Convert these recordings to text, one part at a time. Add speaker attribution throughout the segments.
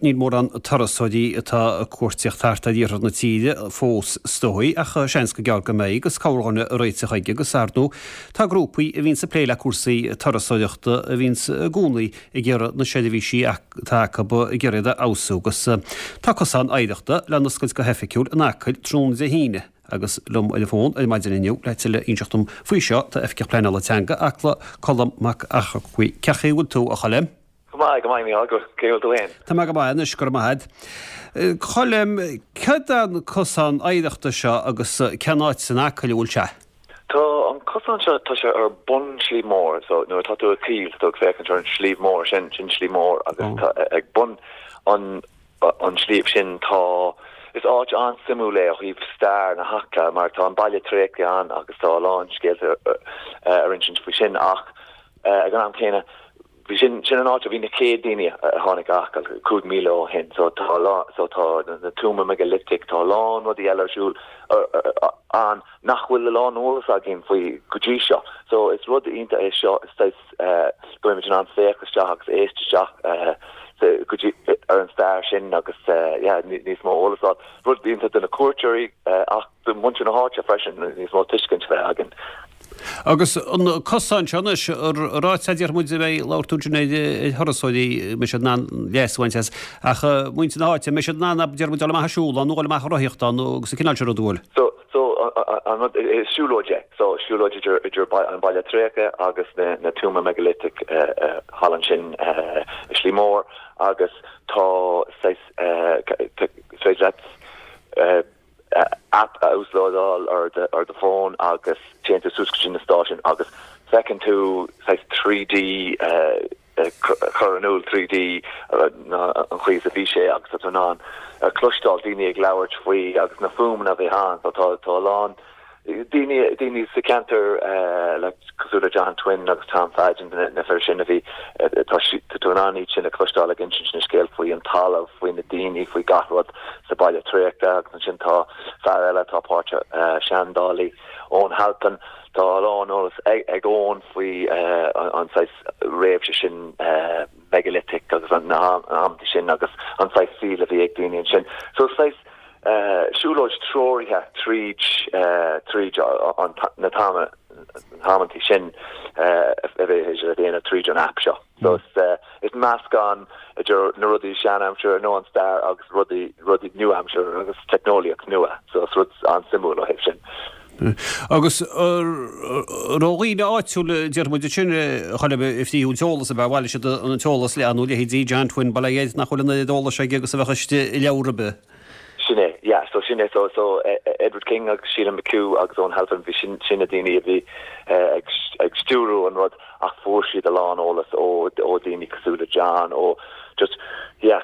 Speaker 1: Níl mórán turasóirí atá ag cuartaíocht thart ar iarthar na tíre fós is dóigh, ach seans go gearr go mbeidh agus corrdhuine ag réiteach chuige agus ar ndóigh tá grúpaí a bhíonns ag plé le cúrsaí turasóireachta a bhíonns i gcónaí ag iarraidh na seirbhísí atá acu ag iarraidh iad a fheabhsú agus tá cosán oidhreachta le n-oscailt go hoifigiúil in Acaill tráthnóna Dé hAoine agus liom ar an bhfón ar maidin inniu le tuilleadh a inseacht dom faoi seo tá Oifigeach Pleanála Teanga Acla, Colm Mac Eachmharcaigh. Cén chaoi a bhfuil tú, a Choilm?
Speaker 2: Go maith, go maith, Mícheál, cén chaoi a bhfuil tú
Speaker 1: féin? Tá mé go maith anois, go raibh maith agat. Colm, céard é an cosán oidhreachta seo agus cén áit san Acaill a bhfuil sé?
Speaker 2: Tá an cosán seo, tá sé ar bun Sliabh Mór, so nuair atá tú ag Acaill, tá tú ag féachaint ar an Sliabh Mór sin, sin Sliabh Mór agus tá ag bun an an sliabh sin tá, is áit an-suimiúil é ó thaobh stair na hAcla mar tá an baile tréigthe ann agus tá a lán scéalta ar insint faoi sin ach ag an am céanna Bhí sin, sin an áit a bhí na chéad daoine a tháinig go hAcaill, 5,000 ó shin. So tá a lán, so tá na tuama megalithigh, tá a lán rudaí eile ar siúl ann nach bhfuil a lán eolas againn faoi go dtí seo. So is rud iontach é seo, is saghas go mbeimid in ann féach isteach agus éist isteach go dtí ar an stair sin agus yeah níos mó eolas a fháil. Rud iontach do na cuairteoirí ach do mhuintir na háite freisin, níos mó tuiscint a bheith againn.
Speaker 1: Agus an cosán seo anois, ráite a déarfaidh muid a bheidh labhair tú ansin ar thurasóirí, an mbeidh siad in ann leas a bhaint as, ach muintir na háite, an mbeidh siad in ann, déarfaidh muid, dul amach ag siúl ann nó dul amach ag rothaíocht ann agus an cineál sin ruda, an bhfuil?
Speaker 2: So, so, an rud, is siúlóid é. So, siúlóid idir, idir an baile tréigthe agus na, na tuama megalithigh thall ansin i Sliabh Mór agus tá saghas, is féidir leat, app a uaslódáil ar ar do fón agus téann tú suas go dtí na stáisiúin agus feiceann tú saghas 3D cur in iúl 3D an chaoi is a bhí sé agus tá tú in ann cloisteáil daoine ag labhairt faoi agus na fuaimeanna a bhí ann so tá tá a lán daoine daoine sa cheantar le cosúil le John Twin agus Tom Fadgen na fir sin a bhí tá tú in ann iad sin a chloisteáil ag insint na scéal faoi an talamh, faoi na daoine, faoi gach rud sa baile tréigthe agus ansin tá fear eile atá páirteach, seandálaí, Eoin Halpin, tá a lán eolas ag Eoin faoi an saghas réimhse sin megalithigh agus na hamanta sin agus an saghas saoil a bhí ag daoine ansin. So saghas siúlóid treoraithe tríd tríd na hamanta sin a bheidh le déanamh tríd an aip seo. So is meascán idir na rudaí sean-aimseartha nó an stair agus rudaí rudaí nua-aimseartha agus teicneolaíocht nua. So is rud an-suimiúil ó thaobh sin.
Speaker 1: Agus ó dhaoine áitiúla, déarfaidh muid ansin, a Choilm, a frítheadh an t-eolas, ab ea? Bhailigh siad an t-eolas le nó leithéidí John Twin, bail ó Dhia air, nach bhfuil an oiread eolais aige agus a bheadh istigh i leabhar ar bith.
Speaker 2: Sin é, yeah, so sin é, so, so Edward King agus Sheila McHugh agus Eoin Halpin, bhí sin, sin na daoine a bhí ag, ag stiúrú an rud ach fuair siad a lán eolas ó, ó daoine cosúil le John, ó just, yeah,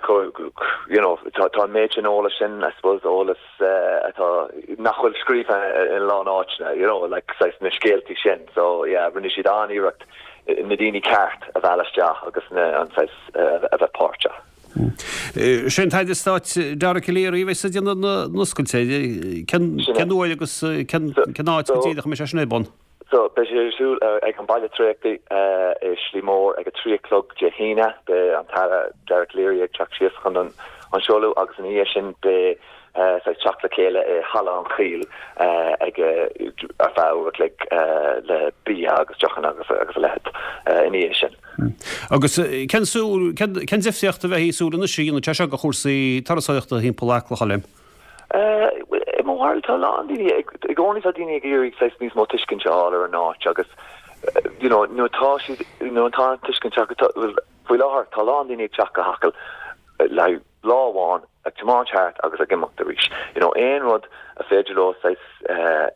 Speaker 2: you know, tá, tá an méid sin eolais sin, I suppose, eolas atá, nach bhfuil scríofa in a lán áiteanna, you know, like saghas na scéaltaí sin, so yeah, rinne siad an-iarracht na daoine ceart a mhealladh isteach agus na, an saghas a bheith páirteach.
Speaker 1: Sé an tAire Stáit Dara Calleary a bheas ag déanamh na n-oscailte. Cén uair agus cén áit go díreach a mbeidh sé sin ar bun?
Speaker 2: So, beidh sé ar siúl ag an Baile Tréigthe i Sliabh Mór ag a 3 a chlog Dé hAoine. Beidh an tAire Dara Calleary ag teacht síos chun an seoladh agus ina dhiaidh sin beidh saghas teacht le chéile i Halla an Choill ag ar feadh uair a chloig le bia agus deochanna agus a leithéid ina dhiaidh sin.
Speaker 1: Agus cén súil, cén difríocht a bheifí ag súil anois a dhéanfaidh sé seo do chúrsaí turasóireachta thimpeall Acla, a Choilm?
Speaker 2: I mo bharúil tá a lán daoine, i gcónaí tá daoine ag iarraidh saghas níos mó tuiscint a fháil ar an áit agus you know nuair atá siad, nuair atá an tuiscint acu, bhuel faoi láthair tá a lán daoine ag teacht go hAcaill le haghaidh lá amháin ag tiomáint thart agus ag imeacht arís. You know, aon rud a féidir leo saghas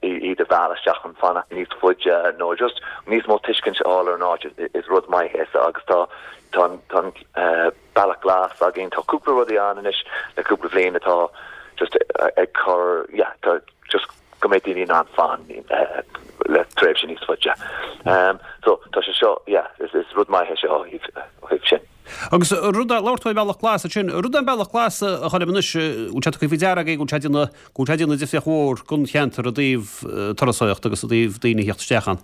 Speaker 2: iad a mhealladh isteach chun fanacht níos faide nó just níos mó tuiscint a fháil ar an áit is rud maith é so agus tá tá an tá an bealach glas againn, tá cúpla rudaí ann anois le cúpla bhliain atá just ag cur yeah tá just go mbeidh daoine in ann fan le tréimhse níos faide. So tá sé seo yeah is is rud maith é seo ó thaobh ó thaobh sin.
Speaker 1: Agus rud a, labhair tú ar Bhealach Glas ansin, rud é an Bealach Glas a Choilm anois, bhfuil sé tugtha faoi deara agaibh go bhfuil sé ag déanamh, go bhfuil sé ag déanamh difríocht mhór don cheantar i dtaobh turasóireachta agus i dtaobh daoine a theacht isteach ann?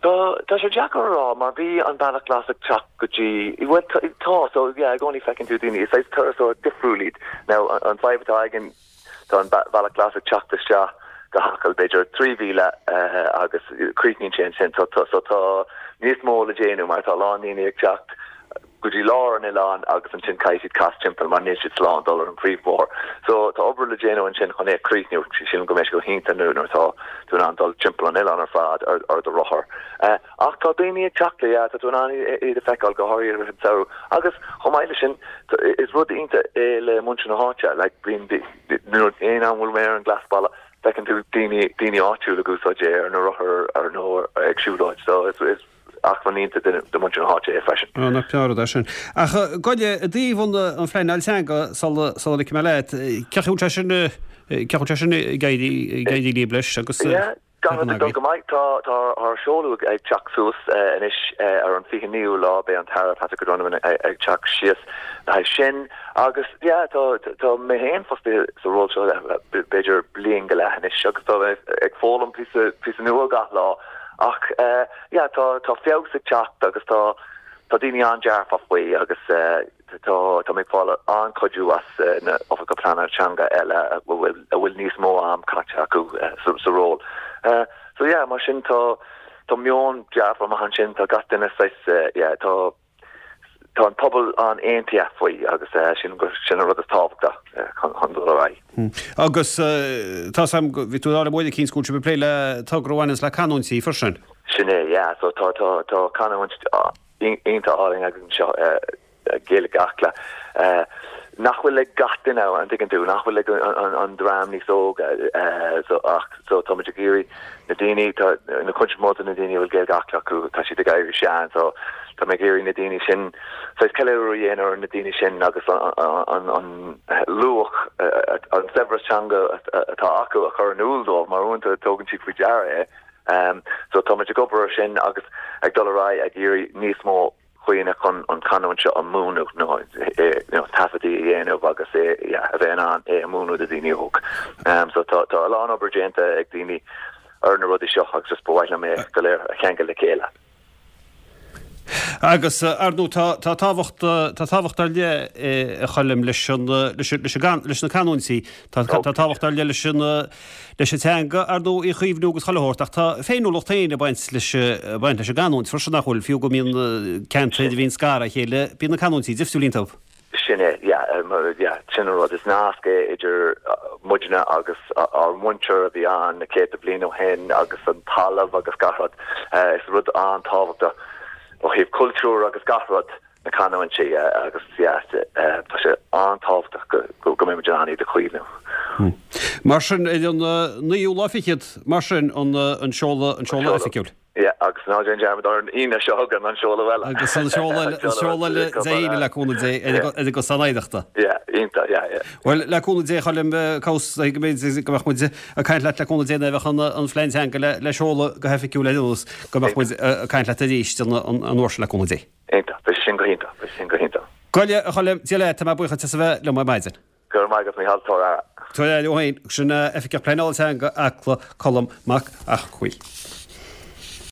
Speaker 2: Tá, tá sé deacair a rá mar bhí an Bealach Glas ag teacht go dtí, bhuel tá, so yeah, i gcónaí feiceann tú daoine, is saghas turasóir difriúil iad. Now an fadhb atá againn, tá an Bealach Glas ag teacht isteach go hAcaill b'fhéidir 3 mhíle agus críochnaíonn sé ansin, so so tá níos mó le déanamh mar tá a lán daoine ag teacht go dtí lár an oileáin agus ansin caithfidh siad cas timpeall mar níl siad slán dul ar an phríomhbhóthar. So tá obair le déanamh ansin chun é a chríochnú. Sílim go mbeidh sé go hiontach nuair atá tú in ann dul timpeall an oileáin ar fad ar ar do rothar. Ach tá daoine ag teacht le, yeah, tá tú in ann iad a feiceáil go háirithe i rith an tsamhraidh. Agus chomh maith leis sin is rud iontach é le muintir na háite, like bíonn nuair aon am bhfuil mé ar an Ghlasbhealach feiceann tú daoine daoine áitiúil ag úsáid é ar na rothair ar nó ag siúlóid. So is is acmhainn iontach do mhuintir na háite é freisin.
Speaker 1: Á, nach breá an rud é sin. Ach gabh i leith, i dtaobh an phleanáil teanga, sula ligfidh mé leat, cén chaoi a bhfuil sé sin, cén chaoi a bhfuil sé sin ag éirí, ag éirí libh leis agus
Speaker 2: Yeah, gach rud ag dul go maith. Tá, tá ár seoladh ag teacht suas anois ar an 29ú lá, beidh an tAire Patrick O'Donovan ag teacht síos le haghaidh sin. Agus yeah, tá, tá mé féin fostaithe sa ról seo b'fhéidir bliain go leith anois agus tá mé ag foghlaim píosa, píosa nua gach lá. Ach yeah tá tá feabhas ag teacht agus tá tá daoine an-dearfach faoi agus tá tá mé ag fáil an-chuidiú as na oifigigh pleanála teanga eile a bhfuil a bhfuil níos mó am caite acu sa sa ról. So yeah mar sin tá tá meon dearfach maith ansin tá gach duine saghas yeah tá Tá an pobal an-aontaithe faoi agus sílim gur sin an rud is tábhachtaí chun dul ar
Speaker 1: aghaidh. Agus tá 's a'm, bhí tú ag rá liom uair eicínt go bhfuil sibh ag plé le togra a bhaineanns le canúintí freisin.
Speaker 2: Sin é, yeah. So tá, tá, tá canúint iontach álainn againn anseo, Gaeilge Acla, nach bhfuil ag gach duine, an dtuigeann tú, nach bhfuil ag an dream níos óga. So ach, so táimid ag iarraidh Na daoine, tá, na cuid is mó de na daoine a bhfuil Gaeilge Acla acu, tá siad ag éirí sean, so tá mé ag iarraidh na daoine sin, saghas ceiliúradh a dhéanamh ar na daoine sin agus an, an luach, an saibhreas teanga atá acu a chur in iúl dóibh, mar uaireanta tógann siad faoi deara é. So tá muid ag obair ar sin agus ag dul ar aghaidh ag iarraidh níos mó dhaoine chun an chanúint seo a mhúineadh nó taifeadtaí a dhéanamh agus é a bheith in ann é a mhúineadh do dhaoine óg. So tá tá a lán obair déanta ag daoine ar na rudaí seo agus just ba mhaith liom é go léir a cheangal le chéile.
Speaker 1: Agus ar ndóigh tá tá tábhacht tá tábhacht ar leith a Choilm leis an leis leis an leis na canúintí. Tá tá tábhacht ar leith leis an leis an teanga, ar ndóigh, í a chaomhnú agus chuile shórt, ach tá féiniúlacht féin ag baint leis, ag baint leis an gcanúint freisin, nach bhfuil? Fiú go mbíonn ceantair a bhíonn scartha ó chéile, bíonn na canúintí difriúil iontu.
Speaker 2: Sin é, yeah, yeah, sin an rud. Is nasc é idir muidne agus ár muintir a bhí ann na céadta bliain ó shin agus an talamh agus gach rud. Is rud an-tábhachtach ó thaobh cultúr agus gach rud. na canúintí agus yeah tá sé an-tábhachtach go go mbeidh muid in ann iad a chaomhnú.
Speaker 1: Mar sin, ar an naoú lá fichead, mar sin, an an seoladh an seoladh oifigiúil.
Speaker 2: Yeah, agus ná déan dearmad ar an Aoine seo chugainn an seoladh eile.
Speaker 1: Agus an seoladh eile, an seoladh eile Dé hAoine le cúnamh Dé ar an gcosán oidhreachta.
Speaker 2: Yeah, iontach, yeah, yeah.
Speaker 1: Bhuel, le cúnamh Dé, a Choilm, cá bhfios go mbeidh go mbeadh muid ag caint leat le cúnamh Dé nuair a bheadh an an phlean teanga le le seoladh go hoifigiúil ar aon nós, go mbeadh muid ag caint leat arís an an uair sin le cúnamh Dé.
Speaker 2: Iontach. Beidh sin go hiontach. Beidh sin go hiontach.
Speaker 1: Gabh i leith, a Choilm, Dia leat, tá mé buíoch duit as a bheith liom ar maidin.
Speaker 2: Go raibh maith agat, Mícheál. Tabhair aire.
Speaker 1: Tabhair aire thú féin. Sin Oifigeach Pleanála Teanga Acla, Colm Mac Eachmhaoil.